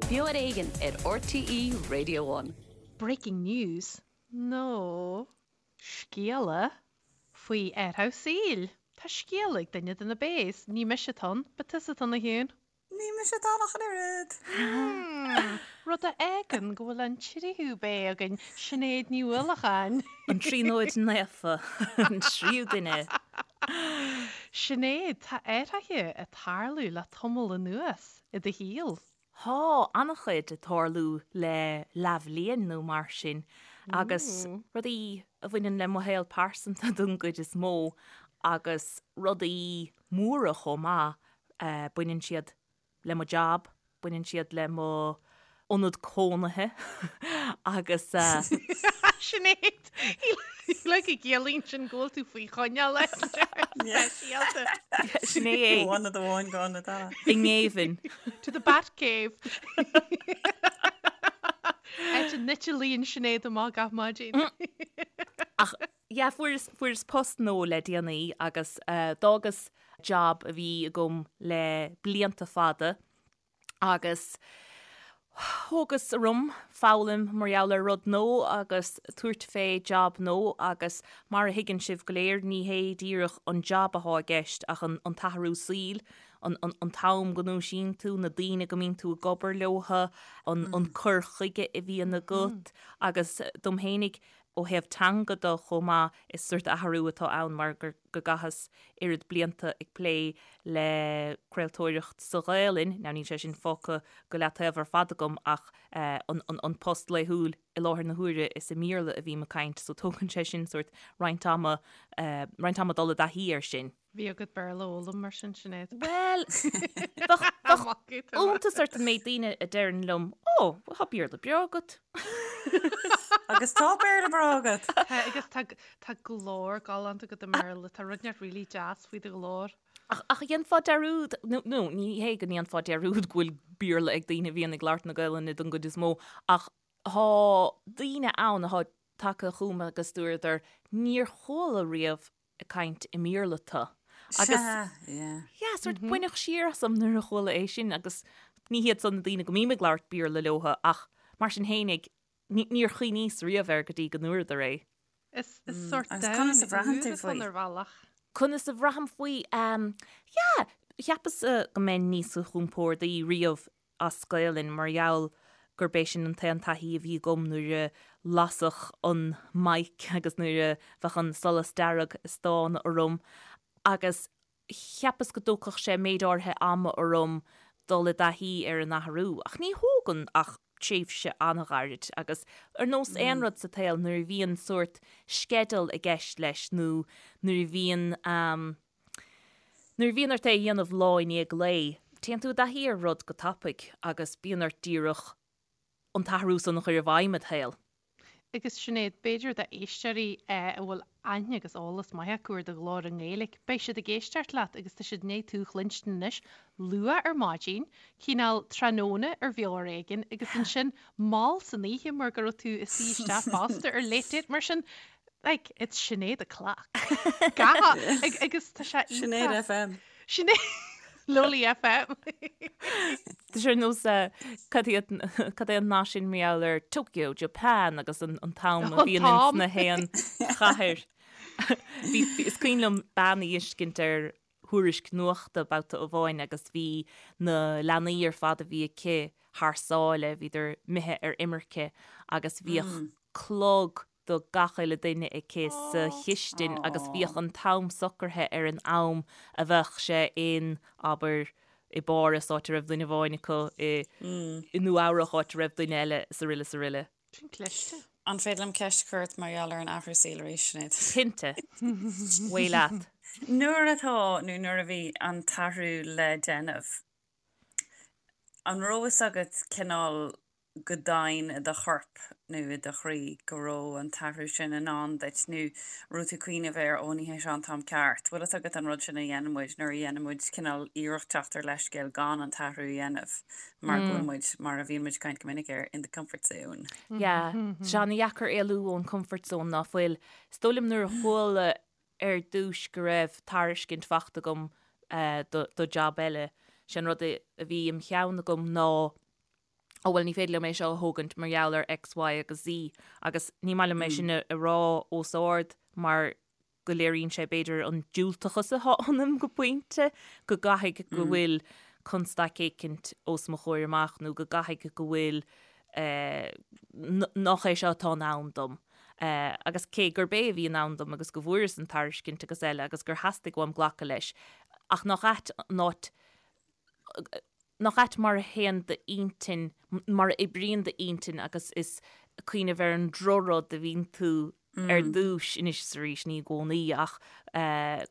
Beo ar Éigean ar RTÉ Radio One. Breaking news, nó scéala faoi athrú saoil. Tá scéal ag duine de na Bays. Ní mise atá ann, ba tusa atá ann a Shiún. Ní mise atá ann ach an oiread. Rud a fhágann go bhfuil an tríú Bay againn, Sinéad Ní Uallacháin. An Tríonóid Naofa, an tríú duine. Sinéad, tá athruithe ag tarlú le tamall anuas i do shaol. Tá an-chuid ag tarlú le leathbhliain nó mar sin agus rudaí a bhaineann le mo shaol pearsanta don gcuid is mó agus rudaí móra chomh maith Baineann siad le mo job, baineann siad le mo ionad cónaithe agus. Sinéad, like go gciallaíonn sin go bhfuil tú faoi choinneáil speisialta. Sin é é. Ó ionad amháin go ionad eile. I ngéibheann. To the Batcave. Áit a n-eitilíonn Sinéad amach gach maidin. Ach Yeah, fuaireas, fuaireas post nua le déanaí agus d'fhágas job a bhí agam le blianta fada agus thógas orm foghlaim mar gheall ar rud nua agus tabhairt fé job nua agus mar a thuigeann sibh go léir ní hé díreach an job athá i gceist ach an, an t-athrú saoil, an, an, an t-am go ndúisíonn tú, na daoine go mbíonn tú ag obair leotha, an, an cur chuige a bhíonn agat agus dom fhéinig Ó thaobh teanga de chomh maith, is sórt athrú atá ann mar gur go gcaitheas oiread blianta ag plé le craoltóireacht sa Ghaelainn, now níl sé sin fágtha go leataobh ar fad agam ach an post laethúil i láthair na huaire is i mBéarla a bhím ag caint so tógann sé sin sórt roinnt ama, roinnt ama dul i dtaithí air sin. Bhí agat Béarla a fhoghlaim mar sin, Sinéad. Bhuel, bheadh iontas ort an méid daoine a deireann liom, Ó, tá Béarla breá agat. Agus tá Béarla breá agat! Tá, agus tá, tá glór galánta agat i mBéarla, tá rud inteacht really deas faoi do ghlór. Ach, ach dhéanfá dearúd, nó, nó ní hé go ndéanfá dearúd go bhfuil Béarla ag daoine a bhíonn ag labhairt na Gaelainne don gcuid is mó, ach tá daoine ann atá tagtha chugam agus dúradar, níor chuala riamh ag caint i mBéarla tu. Agus Sea, yeah. yeah, sort baineadh siar asam nuair a chuala é sin agus ní hiad san na daoine go mbím ag labhairt Béarla leotha ach mar sin fhéinig ní, níor chuimhníos riamh air go dtí go ndúradar é. Is, is sórt Agus conas a domhan bhraitheann úr tú atá faoi? ann ar bhealach. Conas a bhraithim faoi? Um, yeah, cheapas go mbeinn níos compórdaí riamh as Gaelainn mar gheall gurb é sin an t-aon taithí a bhí agam nuair a lasadh an mic agus nuair a bheadh an solas dearg ag stánadh orm agus cheapas go dtógfadh sé méid áirithe ama orm dul i dtaithí ar an athrú ach ní thógann ach tréimhse an-ghairid agus ar nós aon rud sa tsaol nuair a bhíonn sórt sceideal i gceist leis nó nuair a bhíonn Nuair a bhíonn ort é a dhéanamh lá i ndiaidh lae, téann tú i dtaithí ar rud go tapaidh agus bíonn ort díreach an t-athrú san a chur i bhfeidhm id shaol. Agus Sinéad, b'fhéidir d'éisteoirí a bhfuil aithne agus eolas maith acu ar do ghlór i nGaeilge, beidh siad ag éisteacht leat agus tá siad i ndiaidh tú a chluinstin anois luath ar maidin, cineál tráthnóna ar Bheo ar Éigean agus ansin mall san oíche mar go raibh tú ag suí isteach fosta ar Late Date. Mar sin, Like, it's Sinéad o'clock. Gach, agus tá sé iontach. Sinéad FM. Sinéad, Lowly FM. Tá sé ar nós cad iad, cad é an nath sin mar gheall ar Tokyo, Japan agus an an t-am a bhíonn ins na haon chathair. Bhí, is cuimhin liom bean a fheiscint ar thuairisc nuachta babhta amháin agus bhí na leanaí ar fad a bhí aici thar sáile, bhíodar imithe ar imirce agus bhíodh clog do gach uile duine aici sa chistin agus bhíodh an t-am socraithe ar an am a bheadh sé in, abair, i bPáras, áit a raibh duine amháin acu, i i Nua Eabhrach, áit a raibh duine eile, is aroile is aroile. Sin cliste. An féidir liom ceist a chur ort mar gheall ar an athrú saoil arís, Sinéad? Cinnte. Away leat. Nuair atá, nó nuair a bhí, an t-athrú le déanamh, an raibh fhios agat cineál go domhain i do chorp nó i do chroí go raibh an t-athrú sin i ndán duit nó raibh tú ag cuimhneamh air, ó ní hé seo an t-am ceart. Bhfuil fhios agat an rud sin a dhéanann muid nuair a dhéanann muid cineál iarracht teacht ar leithscéal gan an t-athrú a dhéanamh mar go bhfuil muid, mar a bhíonn muid ag caint go minic air, in the comfort zone. Yeah, tá sé an-dheacair éalú ón comfort zone ná fuil. Is dóigh liom nuair a chuala ar dtúis go raibh tairiscint fachta agam do job eile, sé an rud a bhí im cheann agam ná. Ó bhuel ní féidir liom é seo a thógaint mar gheall ar X, Y agus Z agus ní maith liom é sin a rá os ard mar go léiríonn sé b'fhéidir an diúltachas atá ionam go pointe, go gcaithfidh go bhfuil constaic éicint os mo chomhair amach nó go gcaithfidh go bhfuil nach é seo atá in ann dom. Agus cé gurb é a bhí in ann dom agus go bhfuaireas an tairiscint agus eile agus gur theastaigh uaim glacadh leis, ach nach ait an áit nach ait mar a théann d'intinn, mar a oibríonn d'intinn agus is cuimhneamh ar an drochrud a bhíonn tú ar dtús, anois is arís, ní i gcónaí, ach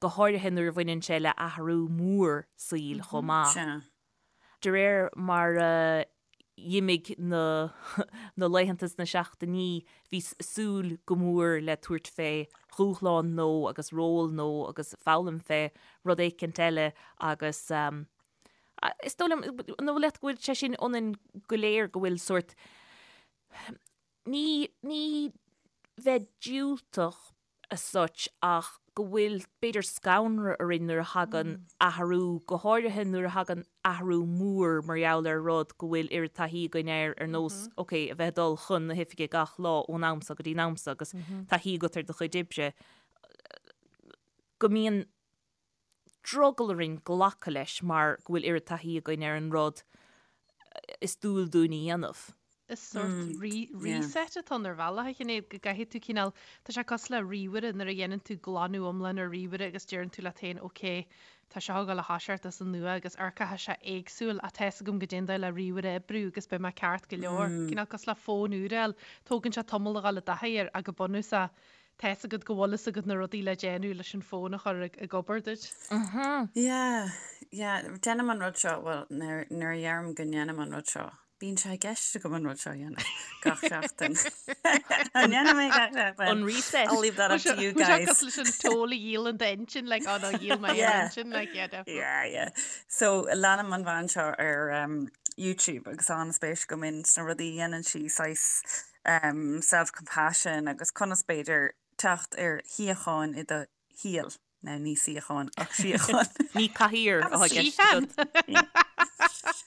go háirithe nuair a bhaineann sé le athrú mór saoil chomh maith. Sea. De réir mar a d'imigh na na laethanta is na seachtainí, bhíos ag súil go mór le tabhairt fé dhúshlán nua agus ról nua agus foghlaim fé rud éicint eile agus is dóigh liom, an dóigh leat go bhfuil sé sin ionainn go léir, go bhfuil sórt, ní, ní bheith diúltach as such ach go bhfuil b'fhéidir scanradh orainn nuair a thagann athrú, go háirithe nuair a thagann athrú mór mar gheall ar rud go bhfuil oiread taithí againn air ar nós, ok, a bheith ag dul chun na hoifige gach lá ón am so go dtí an am so agus taithí agat ar do chuid oibre, go mbíonn drogall orainn glacadh leis mar go bhfuil oiread taithí againn ar an rud is dual dúinn a dhéanamh. Is sórt reset atá ann ar bhealach, a Shinéad, go gcaithfidh tú cineál, tá sé cosúil le ríomhaire nuair a dhéanann tú glanadh iomlán ar ríomhaire agus deireann tú leat féin ok, tá seo ag dul a thoiseacht as an nua agus amharcfaidh sé éagsúil ach tá fhios agam goidé an dóigh le ríomhaire a oibriú agus beidh mé ceart go leor. Cineál cosúil le fón úr a fháil, tógann sé tamall a dhul i dtaithí air ach go bunúsach Tá fhios agat go bhfuil fhios agat na rudaí le déanamh leis an fón a chur ag obair duit. Yeah, yeah, déanaim an rud seo, bhuel, nuair a dheirim go ndéanaim an rud seo, bíonn sé i gceist agam an rud seo a dhéanamh gach seachtain. An ndéanaim é gach seachtain? An reset. I'll leave that up to you guys. Cosúil leis an t-ól a dhíolann d'intinn, like, oh no, dhíol mé an intinn, like, yeah, definitely. Yeah, yeah. So, leanaim an bhean seo ar um, YouTube agus tá an-spéis agam in sna rudaí a dhéanann sí, saghas self-compassion agus conas b'fhéidir teacht ar shíocháin i do shaol, now ní suíochán ach síocháin. Ní cathaoir atá i gceist agat.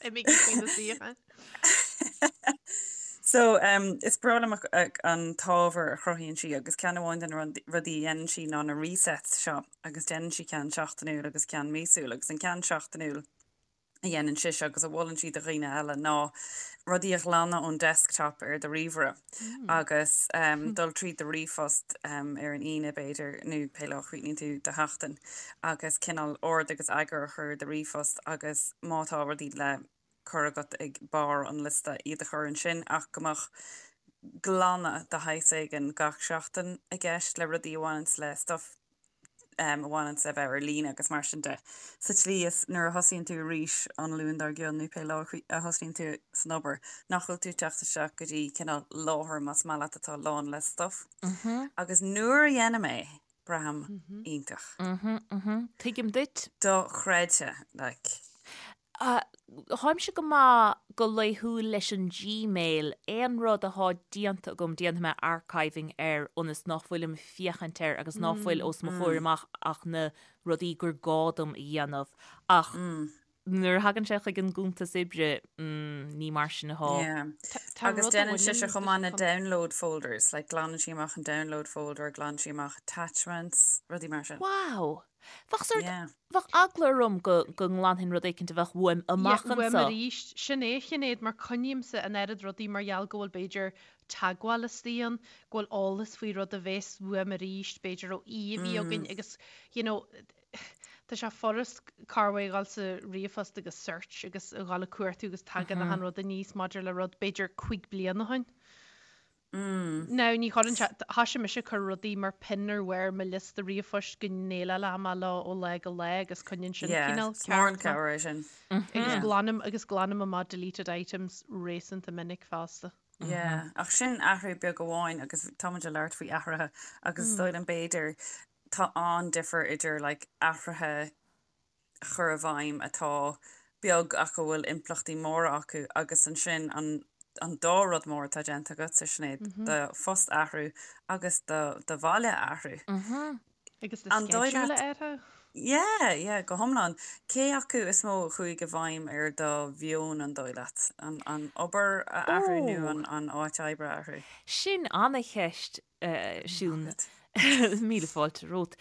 Imigí faoi na suíocháin. So is breá liom an t-ábhar a chruthaíonn sí agus ceann amháin de na rudaí a dhéanann sí ná na resets seo agus déanann sí ceann seachtainiúil agus ceann míosúil agus an ceann seachtainiúil a dhéanann sise agus a mholann sí do dhaoine eile ná rudaí a ghlanadh ón desktop ar do ríomhaire agus dul tríd do ríomhphost ar an Aoine b'fhéidir nó pé lá a chríochnaíonn tú do sheachtain agus cineál ord agus eagar a chur ar do ríomhphost agus má tá rudaí le cur agat ag barr an liosta iad a chur ansin ach go mbeadh glanadh de shaghas éigin gach seachtain i gceist le rudaí a bhaineanns le stuff a bhaineanns le bheith ar líne agus mar sin de. Sa tslí is nuair a thosaíonn tú arís an Luan dár gcionn nó pé lá a thosaíonn tú san obair, nach bhfuil tú ag teacht isteach go dtí cineál láthair más maith leat atá lán le stuff. Agus nuair a dhéanaim é, braithim iontach. Tuigim duit. Dochreidte, like. Táimse go maith go laethúil leis an Gmail, aon rud atá déanta agam déanfaidh mé archiving air ionas nach bhfuilim ag féachaint air agus ná fuil os mo chomhair amach ach na rudaí gur gá dom a dhéanamh. Ach nuair a thagann sé chuig an gcuntas oibre, ní mar sin atá. Yeah. Agus déanann sise chomh maith na download folders, like glanann sí amach an download folder, glanann sí amach attachments, rudaí mar sin. Wow! Bheadh sort, Yeah. bheadh eagla orm go, go nglanfainn rud éicint a bheadh uaim amach Yeah, uaim anso. arís. Sin é, a Shinéad, mar coinnímse an oiread rudaí mar gheall go bhfuil b'fhéidir teagmháil istigh ann, go bhfuil eolas faoi rud a bheas uaim arís, b'fhéidir ó aoi a bhí againn agus, you know, tá sé furast corruair a dhul sa ríomhphost agus search agus a dhul ag cuartú agus tagann achan rud aníos maidir le rud b'fhéidir cuig bliana ó shin. Now, ní chuireann sé, thoisigh mise ag cur rudaí mar pin ar bharr mo liosta ríomhphoist go ndéileálfaidh mé leo ó lá go lá agus coinníonn sin Yeah, cineál is mór an ceart mé. cabhair é sin. Agus glanaim, agus glanaim amach deleted items réasúnta minic fosta. Yeah, ach sin athrú beag amháin agus tá muid ag labhairt faoi athruithe agus is dóigh liom b'fhéidir tá an-difear idir like athruithe a chur i bhfeidhm atá beag ach a bhfuil impleachtaí móra acu agus ansin an an dá rud mór atá déanta agatsa, Sinéad, do phost a athrú agus do do bhaile a athrú. Agus do An dóigh schedule leat a athrú. Yeah, yeah, go hiomlán. Cé acu is mó a chuaigh i bhfeidhm ar do mheon, an dóigh leat? An, an obair a athrú nó Ó! an, an áit oibre a athrú? Sin ana-cheist, Siún. Míle fáilte romhat.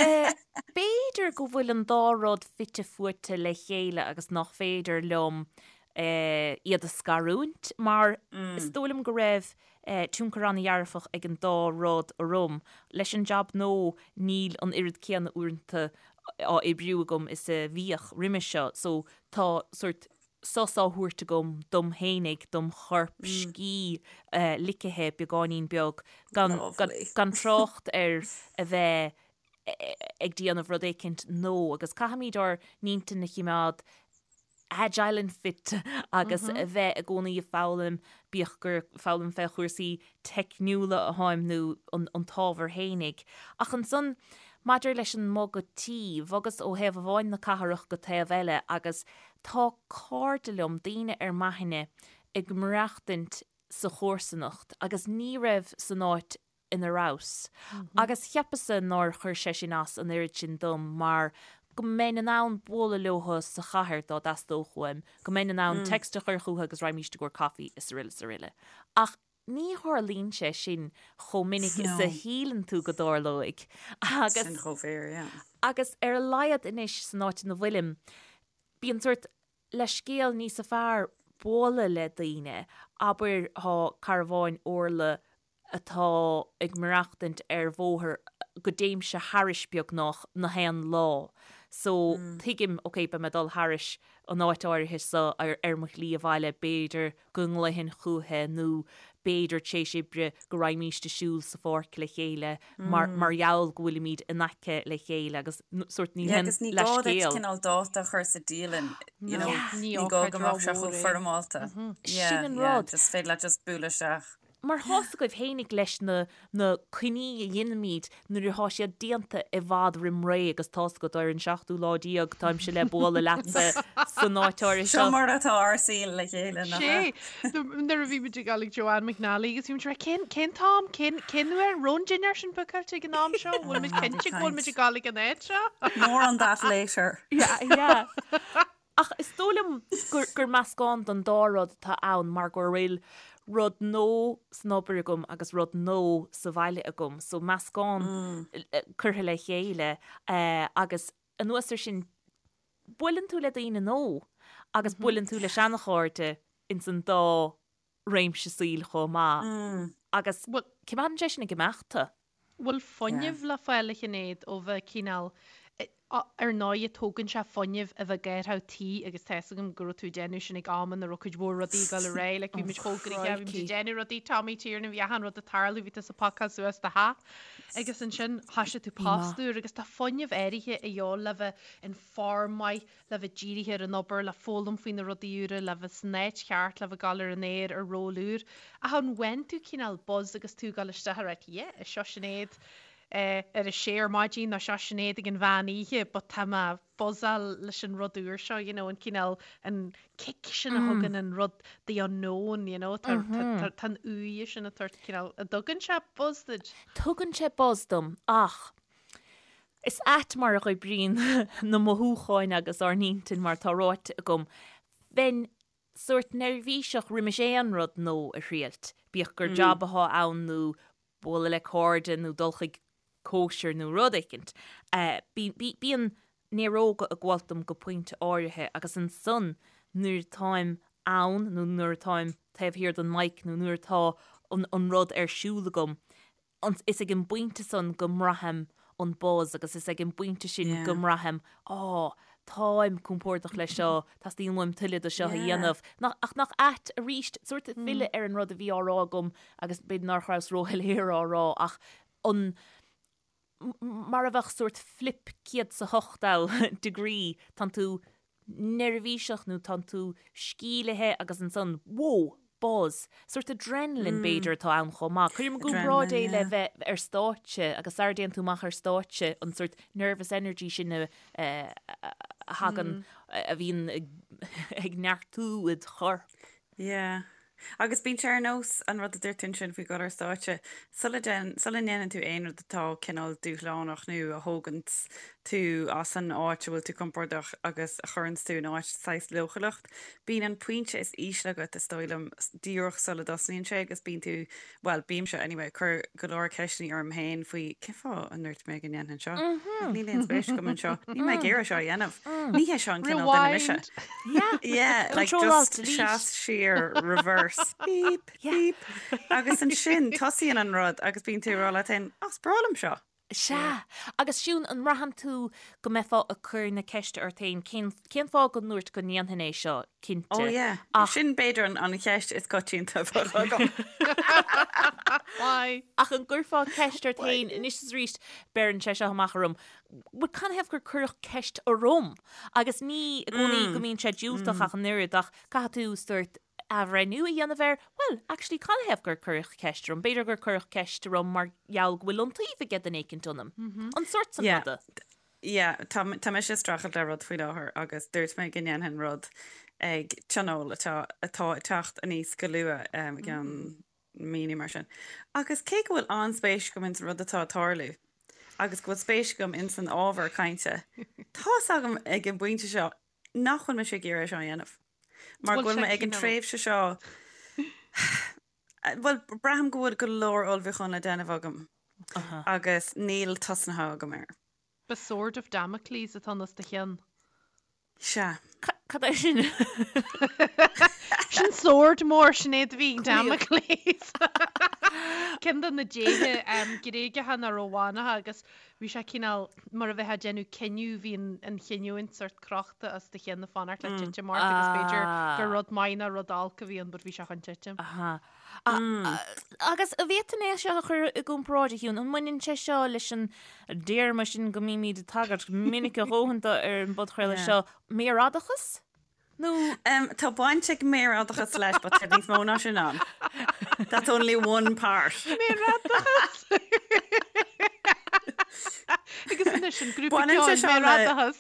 B'fhéidir go bhfuil an dá rud fite fuaite le chéile agus nach féidir liom iad a scarúint mar is dóigh liom go raibh tionchar an-dhearfach ag an dá rud orm. Leis an jab nua níl an oiread céanna uaireanta á oibriú agam is a bhíodh roimhe seo so tá sórt sos á thabhairt agam dom fhéinig, dom chorp, scíth ligthe beagáinín beag, gan gan trácht ar a bheith ag déanamh rud éicint nua agus caithfimid ár n-intinn a chimeád agile and fit agus a bheith i gcónaí ag foghlaim, bíodh gur foghlaim fé chúrsaí teicniúla atáim nó an t-ábhar fhéinig. Ach ansan, maidir leis an mbogadh tí, bhogas ó thaobh amháin na cathrach go taobh eile agus tá cairde liom, daoine ar m'aithne, ag maireachtaint sa chomharsanacht agus ní raibh san áit ina rabhas. Agus cheapas-sa nár chuir sé sin as an oiread sin dom mar go mbeinn in ann bualadh leotha sa chathair dá dteastódh uaim, go mbeinn in ann text a chur chucu agus raghaimíst i gcomhair coffee is aroile is aroile. Ach ní tharlaíonn sé sin chomh minic is a shíleann tú go dtarlóidh. Agus. Sin chomh fíor, yeah. Agus ar a laghad anois san áit ina bhfuilim, bíonn sórt leithscéal níosa fearr bualadh le daoine, abair thá cara amháin, Orla, atá ag maireachtaint ar bhóthar go dtéimse thairis beagnach na haon lá so tuigim ok beidh mé ag dul thairis an áit áirithe seo ar ar mo shlí abhaile b'fhéidir go nglaofainn chúiche nó b'fhéidir tar éis oibre go raghaimíst ag siúl sa pháirc le chéile mar mar gheall go bhfuilimid in aice le chéile agus sórt níl aon leithscéal. Agus ní gá duit cineál dáta a chur sa dialann you know ní gá go mbeadh sé chomh foirmeálta. Sin an rud. Just féidir leat just bualadh isteach. Mar tá's agaibh fhéinig leis na na coinní a dheinimíd nuair athá siad déanta i bhfad roim ré agus tá's agat ar an seachtú lá déag táimse le bualadh leatsa san áit áirithe seo. Seo mar atá ár saol le chéile, nach ea? Sé, nuair a bhí muid ag dul ag Joanne McNally agus bhí muid ag rá cén, cén t-am, cén, cén uair, an raibh an dinnéar sin bookáilte ag an am seo, bhfuil muid cinnte go bhfuil muid ag dul ag an áit seo? More on that later. Yeah, yeah. Ach is dóigh liom gur, gur meascán den dá rud atá ann mar go bhfuil rud nua san obair agam agus rud nua sa bhaile agam, so meascán curtha le chéile agus anuas ar sin buaileann tú le daoine nua agus buaileann tú le seanachairde ins an dá réimse saoil chomh maith agus coimeádann sé sin ag imeacht tú. Bhfuil fuinneamh le fáil a Shinéad ó bheith cineál, ar ndóighe tógann sé fuinneamh a bheith ag athrú tí agus tá fhios agam go raibh tú ag déanamh sin ag am ina raibh cuid mhór rudaí ag dul ar aghaidh, like bhí muid chomh gnoitheach, bhí muid ag déanamh rudaí, Tommy Tiernan, bhí achan rud ag tarlú, bhí tusa ag pacáil suas do theach agus ansin thoisigh tú post úr agus tá fuinneamh áirithe a dhíobháil le bheith in form maith, le bheith dírithe ar an obair, le foghlaim faoi na rudaí úra, le bheith san áit cheart, le bheith ag dul ar an aer ar ról úr. Ach an bhfaigheann tú cineál buzz agus tú ag dul isteach ag ráit yeah, seo Sinéad ar a sé ar maidin nó seo Sinéad ag an mheán oíche but tá mé buzzáil leis an rud úr seo, you know, an cineál, an kick sin a thugann an rud the unknown, you know, tá tá an uaighe sin ag tabhairt cineál, an dtugann sé buzz duit? Tugann sé buzz dom ach Is ait mar a oibríonn na mothúcháin agus ár n-intinn mar atá ráite agam. Bheinn sórt neirbhíseach roimis aon rud nua a thriailt, bíodh gur jab athá ann nó bualadh le cairde nó dul chuig cóisir nó rud éicint. Bíonn néaróga ag gabháilt dom go pointe áirithe agus ansan nuair atáim ann nó nuair atáim taobh thiar den mic nó nuair atá an rud ar siúl agam, Is ag an bpointe san go mbraithim an buzz agus is ag an bpointe sin go mbraithim, á, táim compordach leis seo, teastaíonn uaim tuilleadh de seo a dhéanamh. Ach nach ait arís, sórt filleadh ar an rud a bhí á rá agam agus b'fhéidir nach rabhas róshoiléir á rá ach an, mar a bheadh sórt flip 180 degree, tánn tú neirbhíseach nó tánn tú scílithe agus ansan, whoa! buzz. Sórt adrenaline b'fhéidir atá ann chomh maith. Cuirim i gcomparáid é le bheith ar stáitse agus sara dtéann tú amach ar stáitse an sórt nervous energy sin a thagann, a bhíonn ag neartú id chorp. Yeah. Agus bíonn sé ar nós an rud a dúirt tú ansin faoi dhul ar stáitse, sula dtéann, sula ndéanann tú aon rud atá cineál dúshlánach nó a thóganns tú as an áit a bhfuil tú compordach agus a chuireanns tú in áit saghas leochaileacht, bíonn an pointe is ísle agat, is dóigh liom, díreach sula dtosnaíonn sé agus bíonn tú, bhuel, bímse anyway, ag cur go leor ceisteanna orm féin faoi cén fáth a ndúirt mé go ndéanfainn seo? Níl aon spéis agam anseo. Níl mé ag iarraidh seo a dhéanamh. Ní hé seo an cineál duine mise. Rewind! Yeah. Yeah, like Control alt just delete. seas siar, reverse, beep, Yeah. beep. Agus ansin tosaíonn an rud agus bíonn tú ag rá leat féin, "Á, is breá liom seo. Sea. Agus Siún, an mbraitheann tú go mbeifeá ag cur na ceiste ort féin, cén, cén fáth go ndúirt go ndéanfainn é seo, cinnte. Oh yeah. Ach. Sin b'fhéidir an, an cheist is coitianta a bheadh agam. Why? Ach an gcuirfeá ceist ort féin anois is arís, beireann sé seo amach orm, bhuel canathaobh gur cuireadh ceist orm? Agus ní i gcónaí go mbíonn sé diúltach ach an oiread, ach caithfidh tú sórt athbhreithniú a dhéanamh air, bhuel, actually, canathaobh gur cuireadh ceist orm? B'fhéidir gur cuireadh ceist orm mar gheall go bhfuil iontaoibh ag duine éicint ionam. An sórt san Yeah. ruda. Yeah, tá, tá mise ag streachailt le rud faoi láthair agus dúirt mé go ndéanfainn rud ag tionól atá, atá ag teacht aníos go luath, um, i gceann mí nó mar sin. Agus cé go bhfuil an-spéis agam ins an rud atá ag tarlú agus go bhfuil spéis agam ins an ábhar cainte, tá's agam ag an bpointe seo nach bhfuil mise ag iarraidh é seo a dhéanamh. Mar go bhfuil mé ag an tréimhse seo, bhuel, braithim go bhfuil go leor ullmhúchán le déanamh agam agus níl tosnaithe agam air. The Sword of Damocles atá os do chionn. Sea. Cad é sin? Sin sword mór, Sinéad a bhí ag Damocles. Ceann de na déithe Gréagacha nó Rómhánacha agus Bhí sé cineál mar a bheifeá ag déanamh cinneadh, bhí an chinniúint sórt crochta os do chionn ag fanacht le titim ort agus b'fhéidir gur rud maith nó rud olc a bhí ann but bhí sé chun titim. Agus an bhféadfainn é seo a chur i gcomparáid, a Shiún, an mbaineann sé seo leis an dtéarma sin go mbímid ag tagairt minic a dhóthain dó ar an bpodchraoladh seo, méarfhadachas? Nó tá baint ag méarfhadachas leis, but tá níos mó ná sin ann. That's only one part. Méarfhadachas! Agus anois an grúpa Baineann sé ceoil seo le- Méarfhadachas.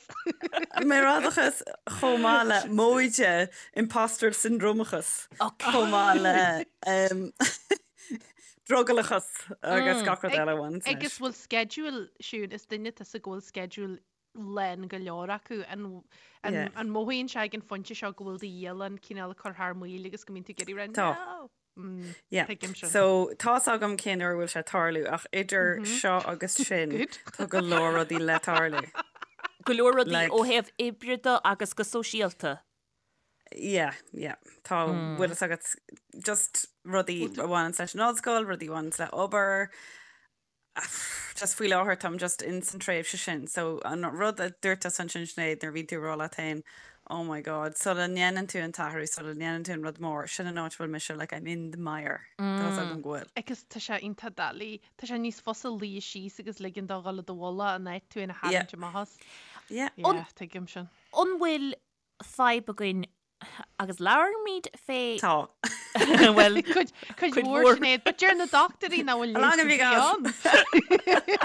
Méarfhadachas chomh maith le móide imposter syndromeachas chomh maith le um, drogallachas agus gach rud eile a bhaineann leis. Agus bhfuil schedule, Siún, is duine tusa go bhfuil schedule lán go leor acu. An an mothaíonn sé ag an phointe seo go bhfuil do dhialann cineál ag cur thar maoil agus go mbíonn tú ag iarraidh rá Tá. No! Mm, Yeah. Tuigim sin. So tá's agam cén uair a bhfuil sé ag tarlú ach idir seo agus sin Good. tá go leor rudaí le tarlú. Go leor rudaí Like- ó thaobh oibre de agus go sóisialta. Yeah, yeah. Tá bhfuil fhios agat just rudaí a bhaineann leis an ollscoil, rudaí a bhaineann le obair, Just faoi láthair táim just in san tréimhse sin so an rud a dúirt tusa ansin Sinéad nuair a bhíonn tú ag rá leat féin oh my god sula ndéanann tú an t-athrú sula ndéanann tú an rud mór sin an áit a bhfuil mise like I'm in the mire tá's agam go bhfuil. Agus tá sé iontach doiligh, tá sé níos fusa luí síos agus ligean dó dhul i do mhullach in áit tú féin a tharraingt amach as. Yeah. Yeah, tuigim sin. An bhfuil fadhb againn Agus labhraímid fé. Tá. Bhuel, Cuid cuid mhór Sinéad, but deir na dochtúirí nach bhfuil How long have you got? ann.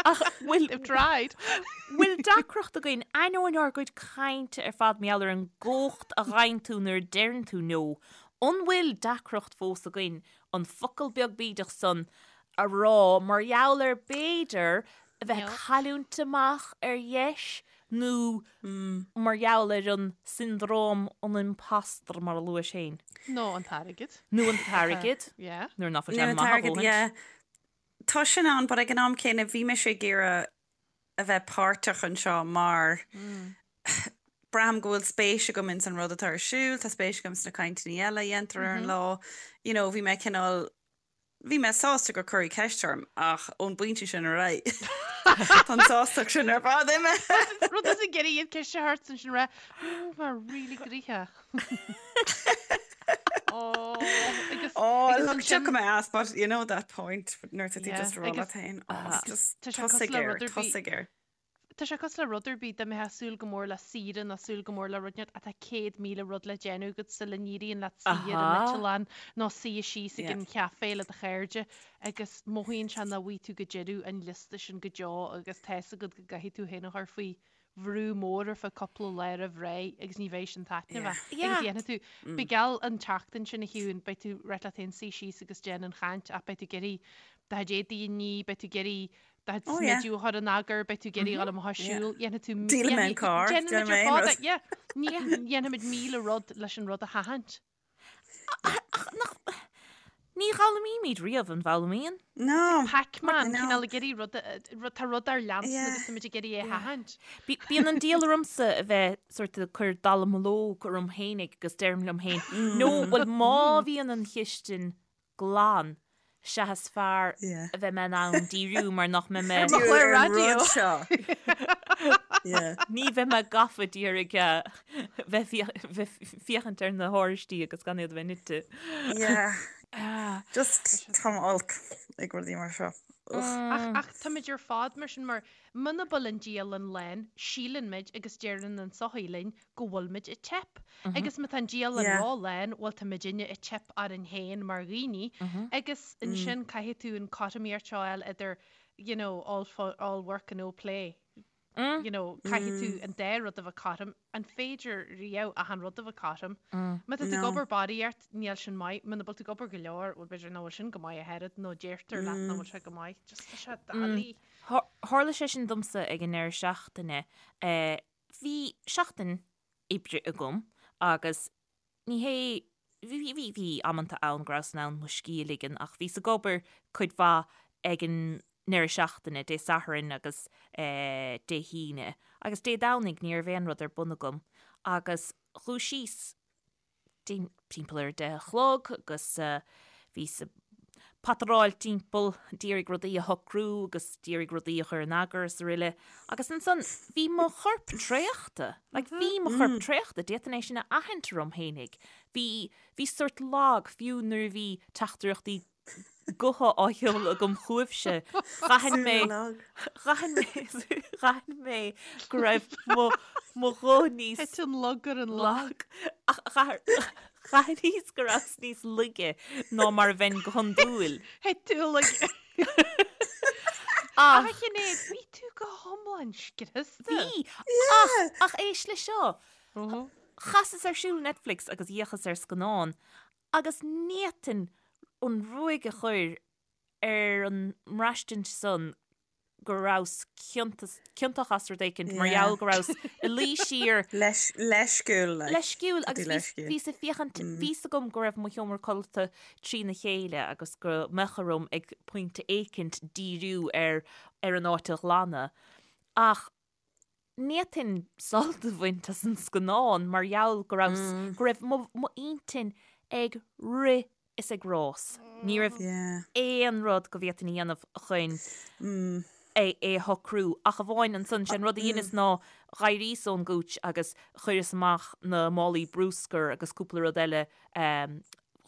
Ach bhfuil They've tried. bhfuil deacracht againn ainneoin ár gcuid cainte ar fad mar gheall ar an gcumhacht a gheibheann tú nuair a deireann tú no, an bhfuil deacracht fós againn an focal beag bídeach san a rá mar gheall ar b'fhéidir a bheith ag cailliúint amach ar dheis nó mar gheall ar an siondróm an impostor mar a luais féin. Nó an t-airgead. Nó an t-airgead. Yeah. Nuair nach bhfuil sé Nó an maith a t-airgead, dhóthaint. yeah. Tá sin ann, but ag an am céanna bhí mise ag iarraidh a bheith páirteach anseo mar braithim go bhfuil spéis agam ins an rud atá ar siúl, tá spéis agam sna cainteanna eile a dhéantar ar an lá. You know, bhí mé cineál Bhí mé sásta gur cuireadh ceist orm ach ón bpointe sin ar aghaidh tá an tsástacht sin ar fad imithe. Rud is ag iarraidh iad ceist a thabhairt ansin rá mar really gnoitheach. Oh, agus Oh, agus look, ansin tiocfaidh mé as, but you know that point nuair atá tú Yeah, just ag rá agus leat féin, oh, just tá sé cosúil tosaigh le air, rud ar bith. tosaigh air. Tá sé cosúil le rud ar bith, dá mbeifeá ag súil go mór le saoire nó súil go mór le rud inteacht tá 100,000 rud le déanamh agat sula n-éiríonn leat suí ar an eitleán nó suí síos ag an chaife le do chairde agus mothaíonn sé nach bhfaighidh tú go deireadh an liosta sin go deo agus tá fhios agat go gcaithfidh tú féin a chur faoi. bhrú mór ar feadh cúpla lá roimh ré agus ní bheidh sin taitneamhach. Agus dhéanfaidh tú, beidh geall an tseachtain sin a Shiún, beidh tú ag ráit leat féin suí síos agus déan an chaint ach beidh tú ag iarraidh do chuid éadaí a ní, beidh tú ag iarraidh do chuid smideadh a chur in eagar, beidh tú ag iarraidh dul amach ag siúl, dhéanfaidh tú, Díolfaidh mé an carr, déanfaidh muid ar fad, yeah, dhéanfaimid 1000 rud leis an rud a sheachaint. Ach nach, ní dh'fhoghlaimímid riamh, an bhfoghlaimíonn? No. Pac-Man, cineál ag iarraidh rud, tá rud ár leanstan agus táimid ag iarraidh é a sheachaint. Bíonn an diabhal ormsa a bheith sort ag cur dallamullóg orm fhéinig agus deirim liom féin, no, bhuel má bhíonn an chistin glan, sea is fearr a bheidh mé in ann díriú mar nach mbeidh mé. Ar mo chlár raidió. Ní bheidh mé gafa d'iarraidh bheith féachaint ar na horáistí agus gan iad a bheith nite. Yeah. Just táim olc ag rudaí mar seo. Ach táimid ar fad mar sin mar muna bhfuil an dialann lán, síleann muid agus deireann an tsochaí linn go bhfuil muid ag teip. Agus má tá an dialann ró-lán, bhuel tá muidinne ag teip orainn féin mar dhaoine agus ansin caithfidh tú an cothromaíocht seo a fháil idir you know all all work and no play. You know, caithfidh tú an dá rud a bheith cothrom. An féidir riamh achan rud a bheith cothrom? Má tá tú ag obair barraíocht, níl sin maith. Muna bhfuil tú ag obair go leor, bhuel b'fhéidir nach bhfuil sin go maith ach oiread nó deirtear leat nach bhfuil sé go maith. Just tá sé doiligh. Tharla sé sin domsa ag an ndeireadh seachtaine. Bhí seachtain oibre agam agus ní hé, bhí, bhí, bhí amanta ann go rabhas in ann mo scíth a ligean ach bhíos ag obair cuid mhaith ag an ndeireadh seachtaine, Dé Sathairn agus Dé hAoine agus Dé Domhnaigh ní raibh aon rud ar bun agam agus dhúisíos timpeall ar a 10 a chlog agus bhíos ag pataráil timpeall, d'iarraidh rudaí a shocrú agus d'iarraidh rudaí a chur in eagar is aroile. Agus ansan bhí mo chorp traochta, like bhí mo chorp traochta, d'fhéadfainn é sin a aithint orm fhéinig. Bhí, bhí sórt lag, fiú nuair a bhí teachtaireachtaí gutha á sheoladh agam chugaibhse, d'aithin mé, d'aithin mé, d'aithin mé go raibh mo, mo ghuth níos. Thit an lug ar an lag. Ach d'aithníos go rabhas níos laige ná mar a bheinn go hiondúil. Thit tú lag. Ach, a Shinéad, bhí tú go hiomlán scriosta. Bhí, ach, ach éist le seo. Chasas ar siúl Netflix agus d'fhéachas ar scannán Agus ní fhéadfainn an ruaig a chur ar an mbraistint san go rabhas ciontach as rud éicint mar gheall go rabhas i luí siar. Leisciúil, like. Leisciúil agus bhíos ag féachaint, bhí's agam go raibh mo sheomra codlata trína chéile agus go mbeadh orm ag pointe éicint díriú ar ar an áit a ghlanadh ach Ní fhéadfainn sult a bhaint as an scannán mar gheall go raibh, go raibh m'intinn ag rith is ag rás. Ní raibh aon rud go bhféadfainn a dhéanamh chun é a shocrú ach amháin ansan, sé an rud a dheineas ná dh'éiríos ón gcúits agus chuireas amach na málaí brúscair agus cúpla rud eile,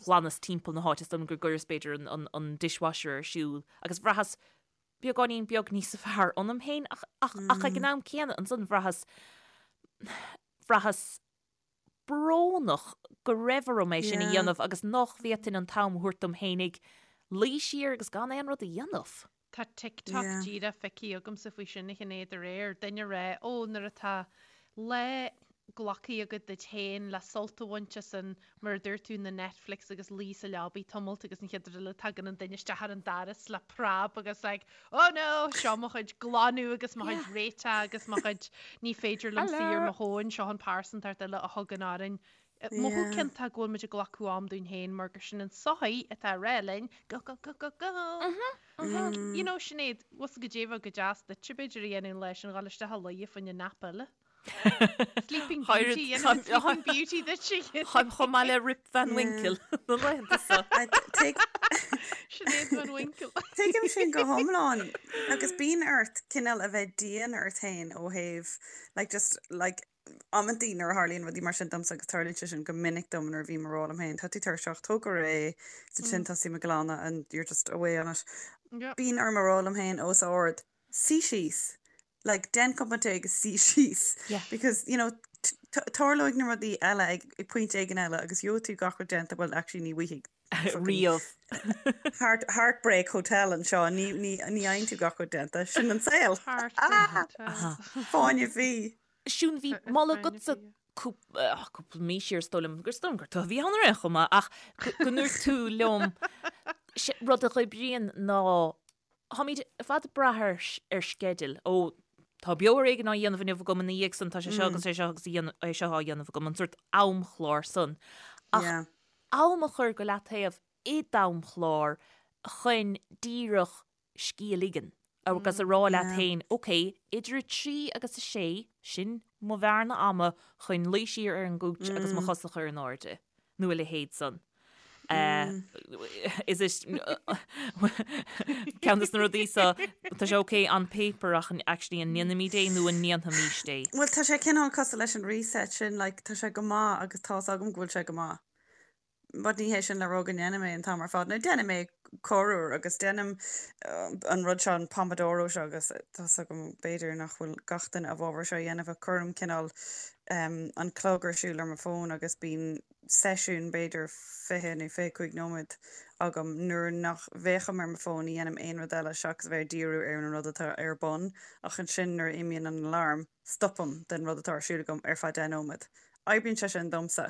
ghlanas timpeall na háite, is dóigh liom gur gcuireas b'fhéidir an dishwasher ar siúl agus bhraitheas beagáinín beag níos fearr ionam féin ach, ach, ach ag an am céanna ansan bhraitheas, bhraitheas brónach go raibh orm é sin a dhéanamh agus nach bhféadfainn an t-am a thabhairt dom fhéinig luí siar agus gan aon rud a dhéanamh. Tá TikTok díreach feicthe agamsa faoi sin a Shinéad aréir, duine ag rá, ó nuair atá lá glactha agat duit féin le sult a bhaint as an, mar a dúirt tú, na Netflix agus luí sa leabaidh tamalt agus an chéad rud eile tagann an duine isteach ar an doras le preab agus like oh no, seo mo chuid glanadh agus mo chuid réiteach agus mo chuid ní féidir liom suí ar mo thóin, seo an pearsantacht eile a thugann orainn. Mothú ciontach go bhfuil muid ag glacadh am dúinn féin mar gur sin an tsochaí atá ag rá linn go go go go go. You know, Sinéad, bhfuil 's agat goidé a bheadh go deas duitse b'fhéidir a dhéanamh an lá sin, dhul isteach a luí fá choinne nap eile. Sleeping Beauty, dhéanfaidh Sleeping Beauty duit. Táim chomh maith le Rip Van Winkle na laethanta seo. Sinéad Van Winkle. Tuigim sin go hiomlán agus bíonn ort cineál a bheith dian ort féin ó thaobh like just like amantaí nuair a tharlaíonn rudaí mar sin domsa agus tarlaíonn sé sin go minic dom nuair a bhím ag rá liom féin tá tú tuirseach, tóg go réidh, is ansin tosaím ag glanadh and you're just away on it. Bíonn orm a rá liom féin os ard suí síos, like déan cupán tae agus suí síos Yeah. because you know tarlóidh na rudaí eile ag ag pointe éigin eile agus gheobhaidh tú gach rud déanta well actually ní bhfaighidh Riamh. heart heartbreak hotel anseo ní ní ní fhaigheann tú gach rud déanta sin an saol Heartbreak Hotel. Fáinne fí. Siún, bhí moladh agatsa cúpla mí siar, is dóigh liom, gur is dóigh liom gur tú a bhí ann ar aon chuma, ach go ndúirt tú liom rud a dh'oibríonn ná táimid ar fad ag brath ar ar sceideal. Ó, tá Beo ar Éigean á dhéanamh inniu agam ina dhiaidh san, tá sé seo agus é seo agus é seo á dhéanamh agam, an sórt amchlár san. Ach am a chur go leataobh i d'amchlár chun díreach scíth a ligean agus a rá leat féin, ok, idir 3 agus 6, sin mo bhearna ama chun luí siar ar an gcúits agus mo chosa a chur in airde, nó a leithéid san. Is it ceann de na rudaí so, tá sé ok on paper ach actually an ndéanfaimid é nó an ndéanfaimís é? Bhuel, tá sé cineál cosúil leis an reset sin, like, tá sé go maith agus tá's agam go bhfuil sé go maith. But ní hé sin le rá go ndéanaim é an t-am ar fad. Nó déanaim é corruair agus déanaim an rud seo, an Pomodoro seo agus tá's agam b'fhéidir nach bhfuil gach duine i bhfabhar seo a dhéanamh ach cuirim cineál an clog ar siúl ar mo fón agus bíonn seisiún b'fhéidir 20 nó 25 nóiméad agam nuair nach bhféachaim ar mo fón, ní dhéanaim aon rud eile seachas a bheith ag díriú ar an rud atá ar bun ach ansin nuair a imíonn an alarm stopaim den rud atá ar siúl agam ar feadh 10 nóiméad. Oibríonn sé sin domsa.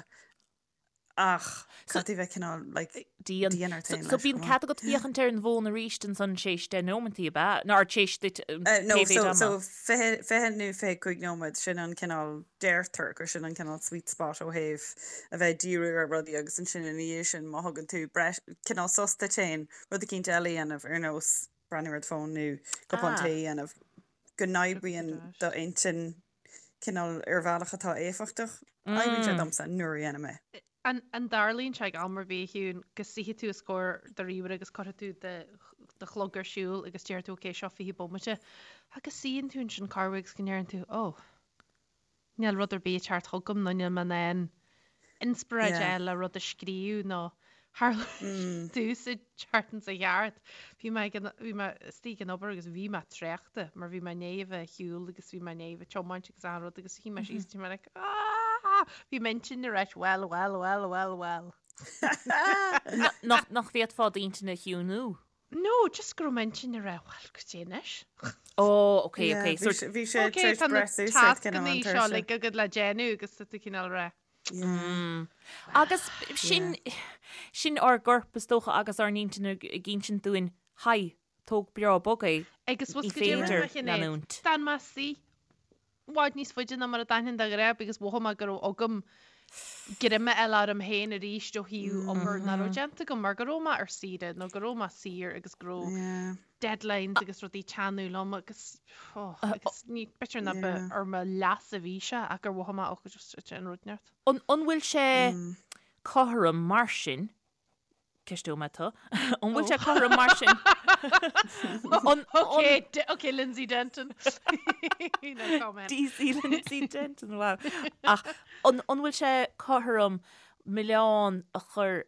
Ach caithfidh tú bheith cineál like Dian. dian ort féin So leis bíonn chomh maith. cead agat féachaint ar an bhfón arís ansan tar éis 10 nóimeantaí, ab ea? Nó tar éis duit No, pé mhéid so ama? so 20 20 nó 25 nóiméad, sin an cineál, deirtear gur sin an cineál sweet spot ó thaobh a bheith ag díriú ar rudaí agus ansin ina dhiaidh sin má thugann tú breis, cineál sos duit féin, rud eicínt eile a dhéanamh ar nós breathnú ar do fón nó cupán Ah. tae a dhéanamh, go n-oibríonn d'intinn cineál ar bhealach atá éifeachtach. Oibríonn sé domsa nuair a dhéanaim é. An dtarlaíonn sé ag am ar bith, a Shiún, go suífidh tú os comhair do ríomhaire agus cuirfidh tú do chlog ar siúl agus déarfaidh tú ok, seo 20 bomaite agus suíonn tú ansin corruair agus go ndeireann tú oh, níl rud ar bith ag teacht chugam nó níl mé in ann inspioráid a fháil le rud a scríobh nó tharla domhsa an tseachtain seo chuaigh thart. Bhí mé ag an, bhí mé istigh ag an obair agus bhí mé traochta mar bhí mé i ndiaidh a bheith ag siúl agus bhí mé i ndiaidh a bheith ag tiomáint agus achan rud agus shuigh mé síos bhí mé like aah! Bhí m'intinn ag ráit well, well, well, well, well. Nach, nach bhféadfá d'intinn a chiúnú? No, just go raibh m'intinn ag rá well, goidé anois. Oh, ok, ok. Yeah, bhí sé Ok, tar éis tá na breith suas ort cineál tascanna an seo tuirse. like agat le déanamh agus tá tú cineál ag rá. Mm. Agus sin, sin ár gcorp is dócha agus ár n-intinn ag insint dúinn, haigh, tóg breá bog é, Agus ní bhfuil goidé féidir rinne mé Sinéad? leanúint. D'fhan mé suí i bhfad níos faide ná mar a d'fhanfainn de ghnáth because mhothaigh mé go raibh agam greim a fháil orm féin arís ó thaobh obair nach raibh déanta agam mar go raibh mé ar saoire nó go raibh mé saor agus go raibh Yeah. deadlines agus rudaí ag teannadh liom agus oh, agus ní b'fhéidir nach ba ar mo leas a bhí sé ach gur mhothaigh mé oh just an rud neart. An an bhfuil sé cothrom mar sin Ceisteoidh mé tú. An bhfuil sé cothrom mar sin? An, Ok, D- ok, Lindsay Denton. No comment. DC Lindsay Denton, wow. Ach an, an bhfuil sé cothrom milleán a chur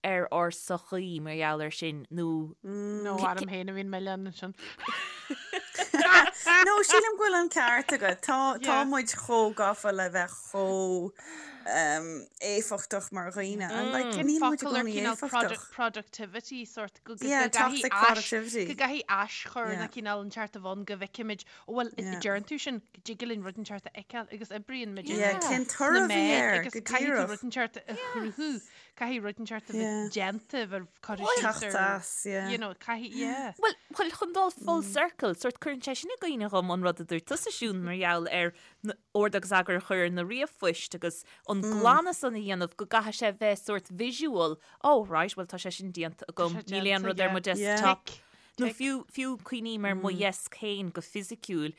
ar ár sochaí mar gheall air sin nó No, orm féin a bhíonn milleán ansin. No, sílim go bhfuil an ceart agat. Tá, tá Yeah. muid chomh gafa le bheith chomh éifeachtach mar dhaoine and like Cén níl muid i focal ar gcónaí cineál éifeachtach. productivity sort go Yeah, toxic productivity. go gcaithfidh aschur Yeah. na cineál inteacht a bheith ann go bhfeicimid ó bhuel Yeah. deireann tú sin go dtig linn rud inteacht a fheiceáil agus oibríonn muid Yeah, cén sna toradh a bhí meáin air agus go caithfidh tú díreach. rud inteacht a chruthú caithfidh rud inteacht a bheith Yeah. déanta bheith curtha síos Teacht ar as, yeah. you know caithfidh yeah. Bhuel, bhuel, chun dul full circle, sort cuireann sé sin i gcuimhne dhom an rud a dúirt tusa Siún mar gheall ar ord agus eagar a chur ar na ríomhphoist agus an glanadh san a dhéanamh go gcaithfidh sé bheith sort visual, oh right, bhuel tá sé sin déanta agam, níl aon rud ar mo desktop. Nó fiú, fiú cuimhním ar mo dheasc féin go fisiciúil,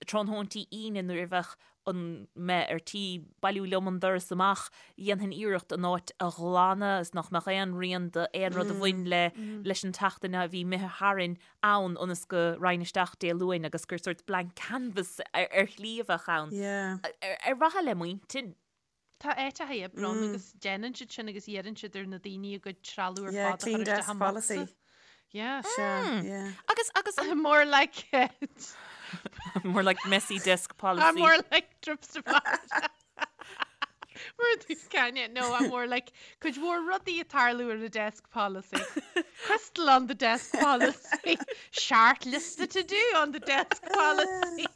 tráthnóintí Aoine nuair a bheadh an mé ar tí bailiú liom an doras amach, dhéanfainn iarracht an áit a ghlanadh is nach mbeadh aon rian d'aon rud a bhain le leis an tseachtain a bhí imithe tharainn ann ionas go raghainn isteach Dé Luain agus gur sort blank canvas ar shlí a bheadh ann. Ar mhaithe le m'intinn. Tá áiteacha oibre ann agus déanann siad sin agus iarrann siad ar na daoine a gcuid trealamh ar Yeah, fad a clean chur isteach desk i mbocsa. policy. Yeah. Sea, yeah. Agus, agus an. More like it. More like messy desk policy. More like trips to Florida. Mar tús cainte, no, I'm more like cuid mhór rudaí ag tarlú ar the desk policy. Crystal on the desk policy. Short lista to do on the desk policy.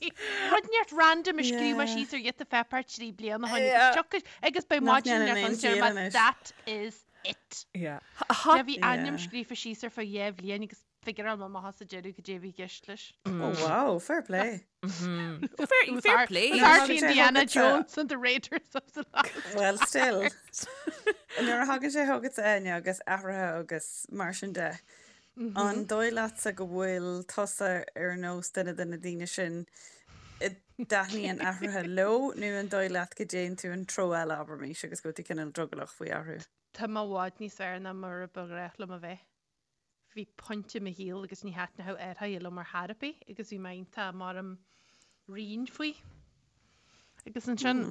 Rud inteacht random a scríobh mé síos ar ghiota pháipéir 3 bliana ó shoin agus tiocfaidh agus beidh Nach maidin ndéanann ar aon fud deir chiall mé anois. that is it. Yeah. Yeah, bhí ainm Yeah. scríofa síos ar feadh 2 bhliain agus figureáil mé amach sa deireadh cad é a bhí i gceist leis. Oh wow, fair play. Fair, It was fair Ar- play. it was Nuair a Archie thagann sé Indiana chugatsa- Jones and the Raiders of the Lost Well, still. Nuair a thagann sé chugatsa Áine agus athruithe agus mar sin de, an dóigh leatsa go bhfuil tusa ar nós duine de na daoine sin a dtaitníonn athruithe leo nó an dóigh leat go dtéann tú an treo eile, abraimis, agus go bhfuil tú cineál drogallach faoi athrú? Tá mé i bhfad níos fearr ná mar a ba ghnách liom a bheith. Bhí pointe i mo shaol agus ní thaitneodh athruithe liom ar chor ar bith agus bhí mé iontach mar righin faoi. Agus ansin,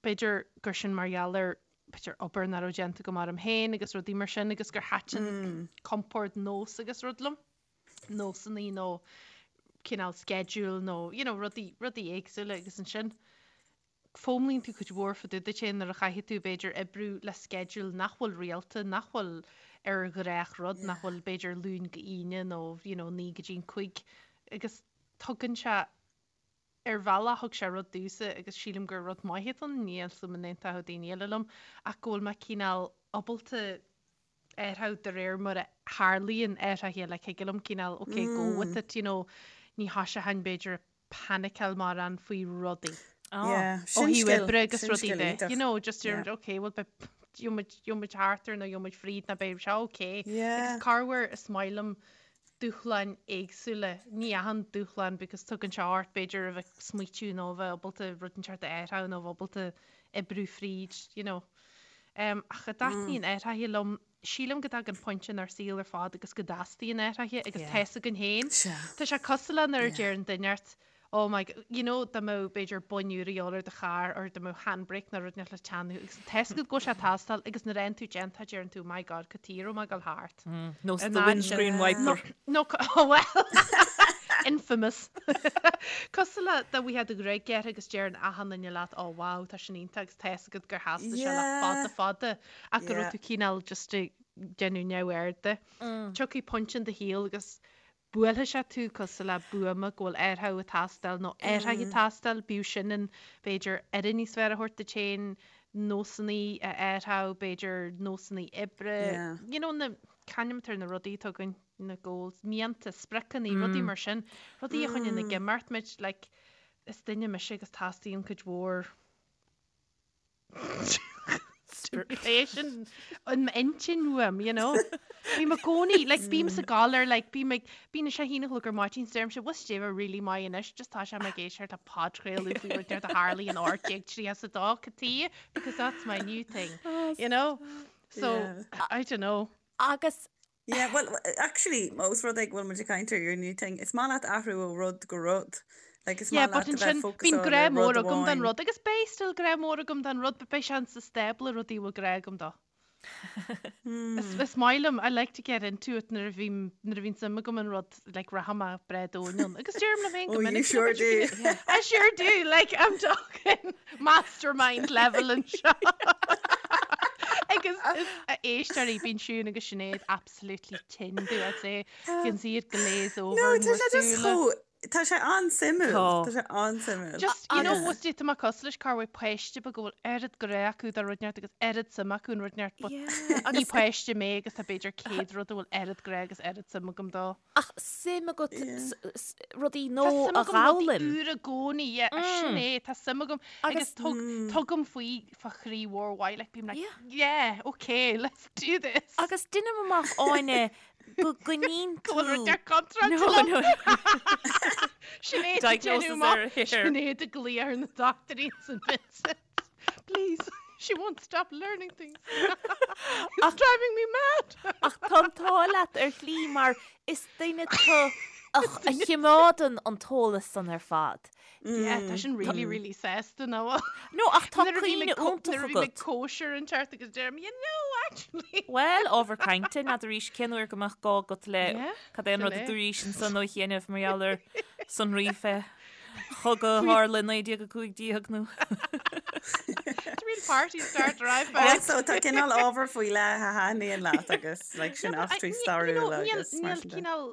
b'fhéidir gur sin mar gheall ar, b'fhéidir obair nach raibh déanta agam orm féin agus rudaí mar sin agus gur thaitin compord nós agus rud liom, nósanna nó cineál schedule nó, you know, rudaí, rudaí éagsúla agus ansin, Foghlaimíonn tú cuid mhór fá dtaobh duit féin nuair a chaithfidh tú, b'fhéidir, oibriú le sceideal nach bhfuil rialta, nach bhfuil ar ghnáthrud, nach bhfuil, b'fhéidir, Luan go hAoine nó, you know, 9 go dtí an 5. Agus tugann sé, ar bhealach, thug sé rud domhsa agus sílim gur rud maith atá ann, níl a fhios agam an aontódh daoine eile liom, ach go bhfuil mé cineál ábalta athrú de réir mar a tharlaíonn athruithe, like thig liom cineál, ok, go with it, you know, ní thoiseochainn, b'fhéidir, ag paniceáil mórán faoi rudaí. Yeah, Ó sin thaobh scil, oibre agus sin rudaí scil de, iontach. you know, just Yeah. yeah. ok, well beidh gheobhaimid gheobhaimid thart air nó gheobhaimid fríd nó beidh sé ok. Yeah. Agus corruair is maith liom dúshláin éagsúla, ní achan dúshlán because tugann sé ort b'fhéidir a bheith ag smaoitiú nó a bheith ábalta rud inteacht a athrú nó a bheith ábalta oibriú fríd, you know. Um, ach a dtaitníonn athruithe liom, sílim go dtagann pointe inár saol ar fad agus go dteastaíonn athruithe agus tá fhios againn féin. Tá sé cosúil le nuair a deireann duine ort, oh my, you know, dá mbeadh b'fhéidir boinn úr a dhíobháil ar do charr or dá mbeadh handbrake nó rud inteacht le teannadh agus tá fhios agat go bhfuil sé ag teastáil agus nuair a fhaigheann tú déanta deireann tú, my God, cad chuige a raibh mé ag dul thart. Nós the windscreen wiper. No, oh well, infamous. Cosúil le dá bhfaighfeá do ghruaig gearrtha agus deireann achan duine leat, oh wow, tá sin iontach agus tá fhios agat gur theastaigh sé le fada fada. Ach go raibh tú cineál just ag déanamh neamhaird de. Tiocfaidh pointe in do shaol agus buailfidh sé tú cosúil le buama go bhfuil athrú ag teastáil nó athruithe ag teastáil, bíodh sin in b'fhéidir aire níos fearr a thabhairt duit féin, nósanna a athrú, b'fhéidir nósanna oibre, you know na, c'ainm atá ar na rudaí atá againn, na goals, mianta, spriocanna, rudaí mar sin, rudaí a choinníonn ag imeacht muid, like is duine mise agus teastaíonn cuid mhór Stimulation in m'intinn uaim, you know. Bím i gcónaí, like, bím sa gcodladh ar, like, bím ag, bíonn sé 1 a chlog ar maidin, 's deirimse, bhfuil Steve really maith anois, just tá sé ag éisteacht le podchraoladh faoi rud inteacht a tharla in 1832, cad chuige, because that's my new thing, you know. So, I don't know. Agus Yeah, well, actually, ós rud é go bhfuil muid ag caint ar your new thing, is maith leat athrú ó rud go rud. Like, is Yeah, maith but leat a bheith ansin, fócasáil bíonn grá ar mór rud agam don amháin. rud, agus beidh still grá mór agam don rud, but beidh sé sa stábla rudaí a bhfuil grá agam dó. Is, is maith liom, I like to get into it nuair a bhím, nuair a bhíonn suim agam in rud, like, rachaidh mé breá domhain ann. Agus deirim liom féin go Oh, you minic, sure do. I sure do, like, I'm talking mastermind level anseo. Agus is a éisteoirí, bíonn Siún agus Sinéad absolutely tinn do, I'd say. You can see it glaze over No, in tá bhur sé just súile. chomh, tá sé an-suimiúil. Tá. Tá sé an-suimiúil. Just, you know, Agus- what's tá mé cosúil leis corruair páiste beag go bhfuil oiread grá acu do rud inteacht agus oiread suim acu in rud inteacht, but Yeah, ní páiste mé agus tá b'fhéidir 100 rud a bhfuil oiread grá agus oiread suim agam dó. Ach suim agat rudaí Tá nua suim a agam rudaí dh'fhoghlaim. úr i gcónaí, yeah, sin é, tá suim agam agus tugaim faoi fá chroí mhór mhaith, like bím like, yeah, okay, let's do this. Agus deinim amach Áine go gcoinníonn tú. Go bhfuil rud ar contráilte No, liom. no. Sinéad ag Diagnosis déanamh amach, ar a hair. Sinéad ag glaoch ar na dochtúirí St Vincent. Please, she won't stop learning things. It's driving me mad. Ach tá an t-ádh leat ar shlí mar is duine tú a chimeádann an t-eolas san ar fad. Yeah, tá sin really, really sásta nó. No, ach tá cuimhne iontach Nuair a bhím ag agat. cóisir inteacht agus deirim, you know, actually. Bhuel, ábhar cainte, n'fheadar arís cén uair go mbeadh gá agat le cad é an rud sin a é. dúraís ansan ó chianaibh mar gheall ar sonraí fé chogadh a tharla i 1915 nó. It's really Real party starter iPad. Also, tá cineál ábhar faoi leith a thaitníonn leat agus like, sin eachtraí stairiúla agus mar Níl sin de. cineál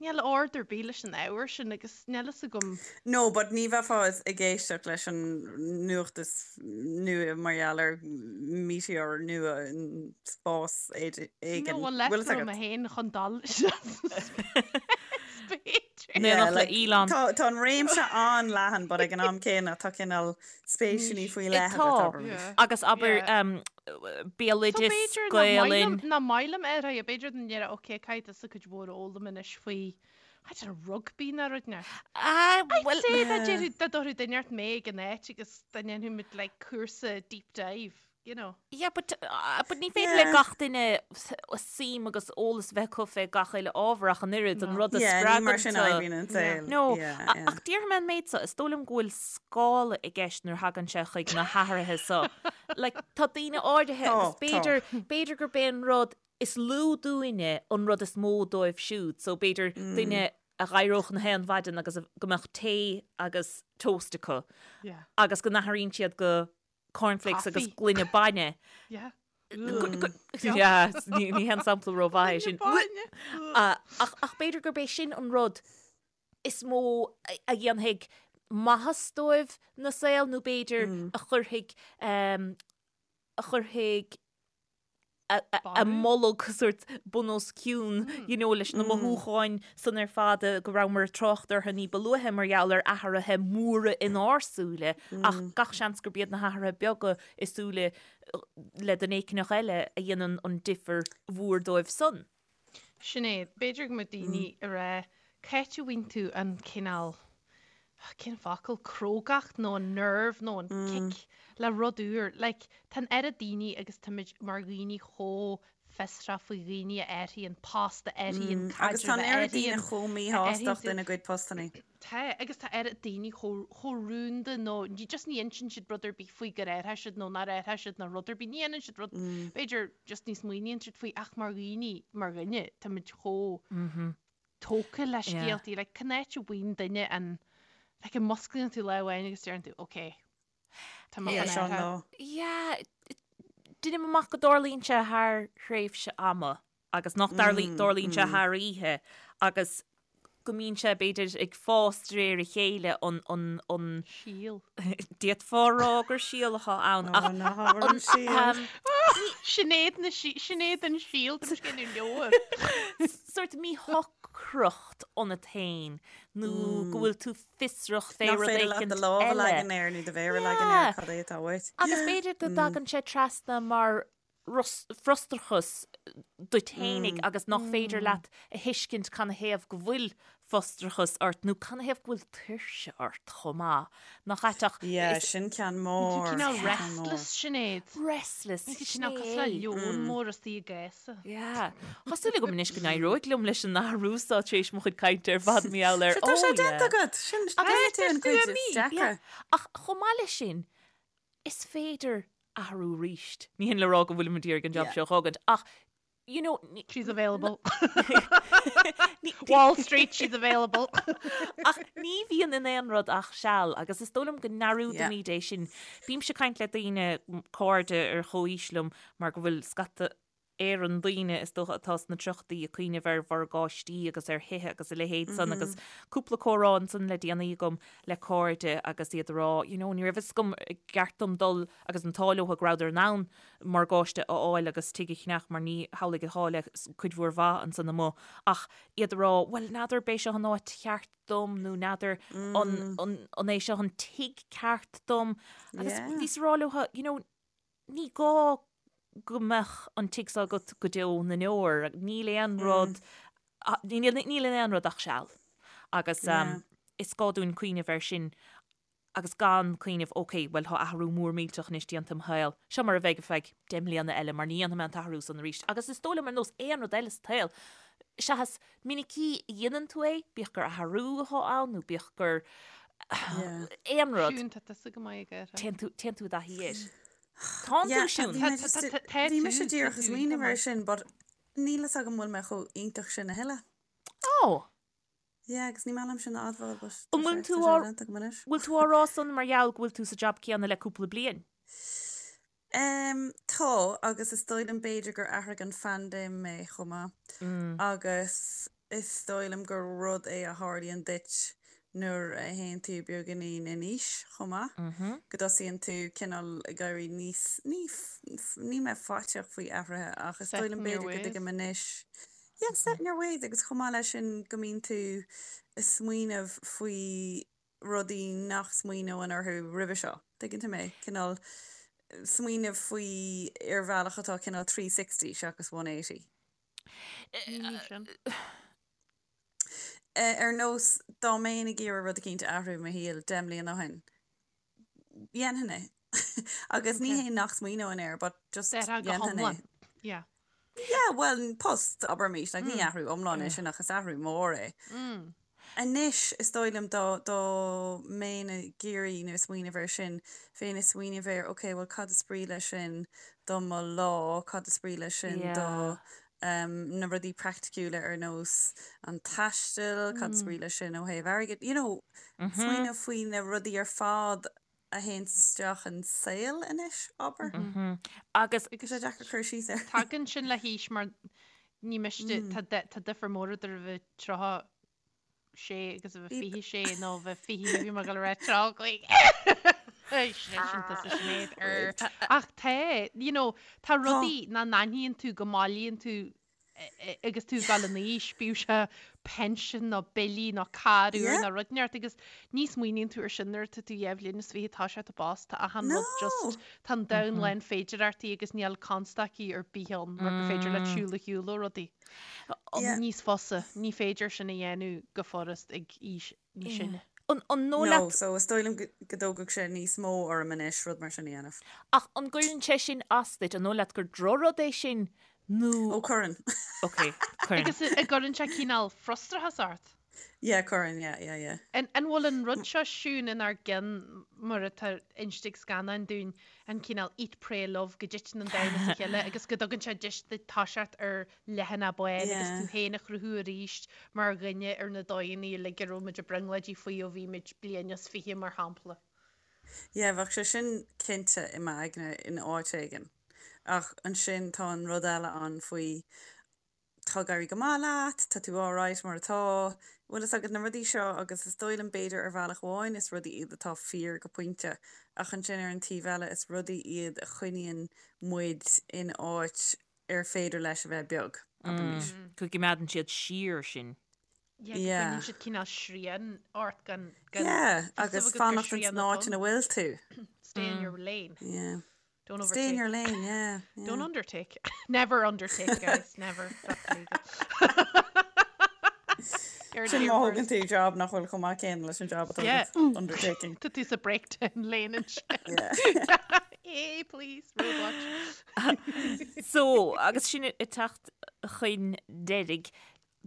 Níl ord ar bith leis an ábhar sin agus níl fhios agam. No, but ní bheifeá ag éisteacht leis an nuacht is nua mar gheall ar meteor nua in spás éigin. No, Bhfuil leis fhios agat? mé féin chun dul B'fhéidir. In éineacht le Elon. Tá tá an réimse an-leathan, but ag an am céanna tá cineál spéiseanna faoi leith Tá. agat, abraimis. Agus abair béaloideas, Gaelainn. Nach maith liom é, b'fhéidir go ndéarfá ok, caithfidh tusa cuid mhór a fhoghlaim anois faoi, I don't know, rugbaí nó rud ná. Ah, I'd say dá déarfadh, dá dtabharfadh duine ort mé ag an áit agus dá ndéanfadh muid like cúrsa deep dive, you know. Yeah, but, uh, but ní féidir le gach duine suim agus eolas bheith acu fé gach uile ábhar ach an oiread, an rud a Yeah, ní mar spreagann sin tú. a oibríonn an saol. No, Yeah, yeah. ach déarfaidh mé an méid seo, is dóigh liom go bhfuil scála i gceist nuair a thagann sé chuig na hathruithe seo. Like, tá daoine áirithe Tá, agus tá. b'fhéidir, b'fhéidir gurb é an rud is lú dúinne an rud is mó dóibh siúd, so b'fhéidir duine a dh'éireodh na haon mhaidin agus a- go mbeadh tae agus toast acu Yeah. agus go n-athraíonn siad go cornflakes agus Coffee. gloine bainne. Yeah. Yeah, ní ní haon sampla rómhaith é sin. Bainne. Ah, ach ach b'fhéidir gurb é sin an rud is mó a dhéanfaidh maitheas dóibh ina saol nó b'fhéidir a chuirfidh a chuirfidh a mbolg sórt bun os cionn you know leis na mothúcháin san ar fad go rabhamar ag trácht orthu ní ba luaithe mar gheall ar athruithe móra inár súile ach gach seans gurb iad na hathruithe beaga i súile le duine éicneach eile a dhéanann an difear mhór dóibh san. Sinéad, b'fhéidir go mbeadh daoine ag rá, c'áit a bhfaigheann tú an cineál, cén focal, crógacht nó an nerve nó an kick le rud úr. Like, tá an oiread daoine agus táimid mar dhaoine chomh fiosrach faoi dhaoine a athraíonn post, a athraíonn Agus tá caidreamh, an a oiread daoine athraíonn, chomh a míshásta athraíonn ina gcuid postannaí. Tá, agus tá oiread daoine chomh, chomh rúnda nó ní, just ní insíonn siad rud ar bith faoi gur athraigh siad nó nár athraigh siad nó rud ar bith, ní dhéanann siad rud, b'fhéidir just ní smaoiníonn siad faoi ach mar dhaoine, mar dhuine, táimid chomh tógtha le scéaltaí, like cén áit a bhfaigheann duine an, like an musclaíonn tú lá amháin agus deireann tú, ok, tá mé Yeah, chun seo an athrú. lá. Yeah, deinim amach go dtarlaíonn sé thar thréimhse ama. agus nach dtarlaíonn sé thar oíche agus go mbíonn sé b'fhéidir ag fás de réir a chéile an an an Síol. D'fhéadfá a rá gur síol atá ann ach Ná habair an síol. Sinéad na sí Sinéad an síol tá mise ag déanamh leabhar. Sórt míshocracht ionat féin nó go bhfuil tú fiosrach fé Nach rud féidir leat éicint do lámh a eile. leagan air nó do mhéar a leagan air cad é atá uait. Agus b'fhéidir go dtagann sé trasna mar frustrachas duit fhéinig agus nach féidir leat a thuiscint canathaobh go bhfuil frustrachas ort nó canathaobh go bhfuil tuirse ort chomh maith. Nach ait ach Yeah, sin ceann mór. Cineál restless, Sinéad. Restless, sin Cineál cosúil le leon mór istigh i gcása. Yeah. Tá súil agam anois go n-éireoidh liom leis an athrú seo tar éis mo chuid cainte ar fad mar gheall air. Tá sé Oh, yeah. déanta agat! Sin déanta an cuid is deacra. Ach chomh maith leis sin, is féidir athrú arís. Ní hin le rá go bhfuilim ag iarraidh an job seo a fhágaint, ach you know, She's available. Wall Street, she's available. Ach ní bhíonn in aon rud ach seal agus is dóigh liom go ndearúdaimid é sin. Bímse ag caint le daoine, cairde ar chomhaois liom mar go bhfuil scata Éireann daoine is dócha atá sna tríochaidí ag cuimhneamh ar mhorgáistí agus ar thithe agus a leithéid san agus cúpla comhrá ansan le déanaí agam le cairde agus iad ag rá you know ní raibh fhios agam an gceart dom dul agus an t-ádh leo go rabhadar in ann morgáiste a fháil agus tigh a cheannach mar ní hamhlaidh atá le cuid mhór mhaith ansan amuigh ach iad ag rá bhuel n'fheadar b'é seo an áit cheart dom nó n'fheadar an an an é seo an tigh ceart dom agus bhíos ag rá leo you know Ní gá go mbeadh an tigh seo agat go deo na ndeor. Níl aon rud, níl in aon rud ach seal. Agus is gá dúinn cuimhneamh air sin agus gan cuimhneamh, ok, bhuel tá athrú mór millteach anois déanta i mo shaol, seo mar a bheidh ar feadh 10 mbliana eile mar ní dhéanfaidh mé an t-athrú san arís. Agus is dóigh liom ar nós aon rud eile sa tsaol, seachas minicí a dhéanann tú é, bíodh gur athrú atá ann nó bíodh gur aon rud. Siún, tá tusa go maith ag athrú. Téann tú, téann tú i dtaithí air. Tánn tú, Siún. Tá Bhí mise díreach ag smaoineamh air sin, but níl fhios agam bhfuil mé chomh iontach sin a thuilleadh. Ó! Yeah, agus ní maith liom sin a admháil, but An bhfuil tú á, bhfuil tú á rá san mar gheall go bhfuil tú sa jab céanna le cúpla bliain? Em, tá, agus is dóigh liom b'fhéidir gur athraigh an phaindéim mé chomh maith. Agus is dóigh liom gur rud é a tharlaíonn duit nuair a théann tú beagáinín in aois chomh maith, go dtosaíonn tú cineál ag éirí níos, ní, ní mé faiteach faoi athruithe ach is dóigh liom b'fhéidir go dtuigim anois, yeah, set in your ways agus chomh maith leis sin go mbíonn tú ag smaoineamh faoi rudaí nach smaoineoinn orthu roimhe seo. Tuigeann tú mé? Cineál smaoineamh faoi ar bhealach atá cineál 360 seachas 180. Sin. Ar nós, dá mbeinn ag iarraidh rud eicínt a athrú i mo shaol 10 mbliana ó shin, dhéanfainn é. Agus ní hé nach smaoineoinn air, but just dhéanfainn é. Yeah. Yeah, well, post, abraimis, like, ní athrú iomlán é sin ach is athrú mór é. Anois, is dóigh liom dá, dá mbeinn ag iarraidh nó ag smaoineamh air sin, bheinn ag smaoineamh ar, ok, well cad is brí leis sin do mo lá, cad is brí leis sin do na rudaí praiticiúla ar nós an taisteal, cad is brí leis sin ó thaobh airgid, you know, smaoineamh faoi na rudaí ar fad a théann isteach in saol anois, abair. Agus. Tá sé deacair cur síos air. Tagann sin le haois mar ní miste, tá difear mór idir a bheith 36 agus a bheith 26 nó a bheith 20, bhí mé ag dul a rá 35. Sin tusa Sinéad ar. Ach tá, you know, tá rudaí nach n-aithníonn tú go mbailíonn tú agus tú ag dul in aois, bíodh sé pension nó billí nó carr úr nó rud inteacht agus ní smaoiníonn tú ar sin nuair atá tú dhá bhliain is fiche tá sé i bpost, tá achan rud just, tá an domhan lán féidireachtaí agus níl constaicí ar bith ann mar gur féidir leat siúl ar shiúl ó rudaí. Níos fusa, ní féidir sin a dhéanamh go furast ag aois níos sine. An dóigh leat. No, so is dóigh liom go dtógfadh sé níos mó orm anois rud mar sin a dhéanamh. Ach an gcuireann sé sin as duit? An dóigh leat gur drochrud é sin nó. Ó, cuireann. Ok, cuireann. Agus an gcuireann sé cineál frustrachas ort? Yeah, cuireann, yeah, yeah, yeah. An bhfuil an rud seo Siún inár gceann mar atá inste ag scannáin dúinn, an cineál eat, pray, love, go dtiteann an domhan as a chéile agus go dtugann sé deis duit toiseacht ar leathanach bán agus tú féin a chruthú arís mar dhuine ar na dóigheanna uilig a raibh muid ag brionglóidí faoi ó bhí muid bliain is fiche, mar shampla. Yeah, bheadh sé sin cinnte i m'aigne in áit éigin. Ach ansin tá an rud eile ann faoi tá ag éirí go maith leat, tá tú alright mar atá, bhfuil fhios agat na rudaí seo agus is dóigh liom b'fhéidir ar bhealach amháin is rudaí iad atá fíor go pointe ach ansin ar an taobh eile is rudaí iad a choinníonn muid in áit ar féidir leis a bheith beag, abraimis. Go gcoimeádann siad siar sinn. Yeah, go gcoinníonn siad cineál srian ort gan gan Yeah, agus fanacht ins an áit ina bhfuil tú. Stay in your lane. Yeah. Don't overtake. Stay in your lane, yeah. yeah. Don't undertake. Never undertake, guys. Never. That's legal. Sin má thógann tú job nach bhfuil chomh maith céanna leis an job atá agat. Undertaking. Tá tú sa breakdown lane ansin. Hey, please, roadwatch. So, agus sinn ag teacht chun deiridh,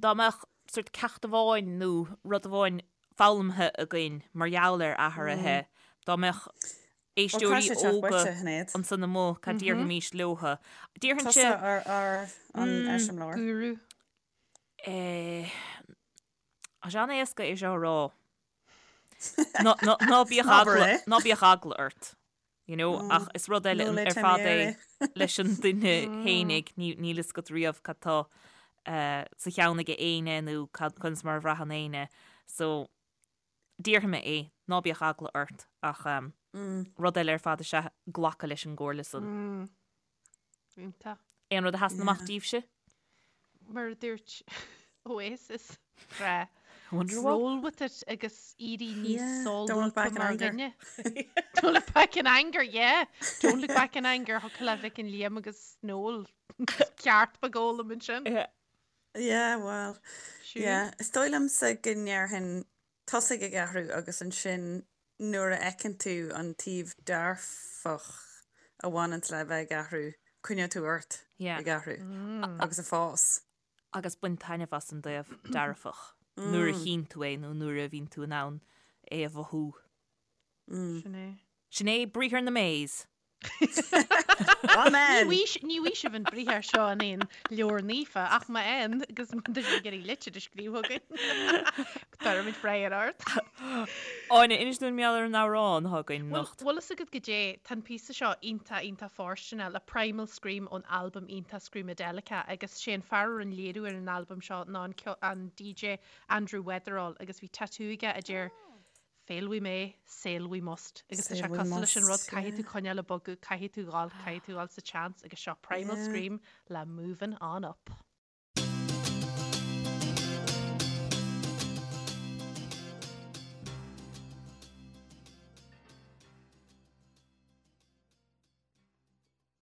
dá mbeadh sort ceacht amháin nó rud amháin foghlamtha againn mar gheall ar athruithe, dá mbeadh éisteoirí óga ansan amuigh, cad déarfaimis leotha? Déarfainnse... Tusa ar an eiseamláir. Guru. Tá sé an-éasca é seo a rá. Ná bíodh eagla, ná bíodh eagla ort. You know, ach is rud eile ar fad é leis an duine fhéinig, níl fhios agat riamh cad tá sa cheann aige éinne nó conas mar a bhraitheann éinne. So, déarfaidh mé é, ná bíodh eagla ort ach rud eile ar fad is ea glacadh leis an gcomhairle san. Iontach. Aon rud a sheasann amach díbhse? Mar a dúirt Oasis, grá. Wonderwall? Roll with it agus éirí níos Yeah, don't look solúbtha back in mar anger. dhuine. Don't look back in anger, yeah. Don't look back in anger, thiocfadh le Mhic an Liam agus Noel ceart beag a fhoghlaim ansin. Yeah. Yeah, well, Siún? yeah. Is dóigh liomsa go ndéarfainn tosaigh ag athrú agus ansin nuair a fheiceann tú an taobh dearfach a bhaineanns le bheith ag athrú, coinneoidh tú ort ag athrú agus ag fás. Agus bain taitneamh as an dtaobh dearfach nuair a chíonn tú é nó nuair a bhíonn tú in ann é a mhothú. Sin é. Sin é briathar na Mays. Amen! Ní bhfaighidh sibh an briathar seo in aon leabhar naofa ach má fhaigheann agus má tá sibh ag iarraidh litir a scríobh chugainn, tabharfaimid freagra ort. Áine, inis dúinn mar gheall ar an amhrán atá againn anocht. Bhfuil fhios agat goidé, tá an píosa seo iontach, iontach fóirsteanach le Primal Scream ón albam iontach Screamadelica agus sé an fear a rinne léiriú ar an albam seo ná an DJ Andrew Weatherall agus bhí tatú aige a deir Fail we may, sail we must. Agus tá sé cosúil leis an rud, caithfidh tú coinneáil ag bogadh, caithfidh tú dhul, caithfidh tú dhul sa tseans agus seo Primal Scream le Movin' On Up.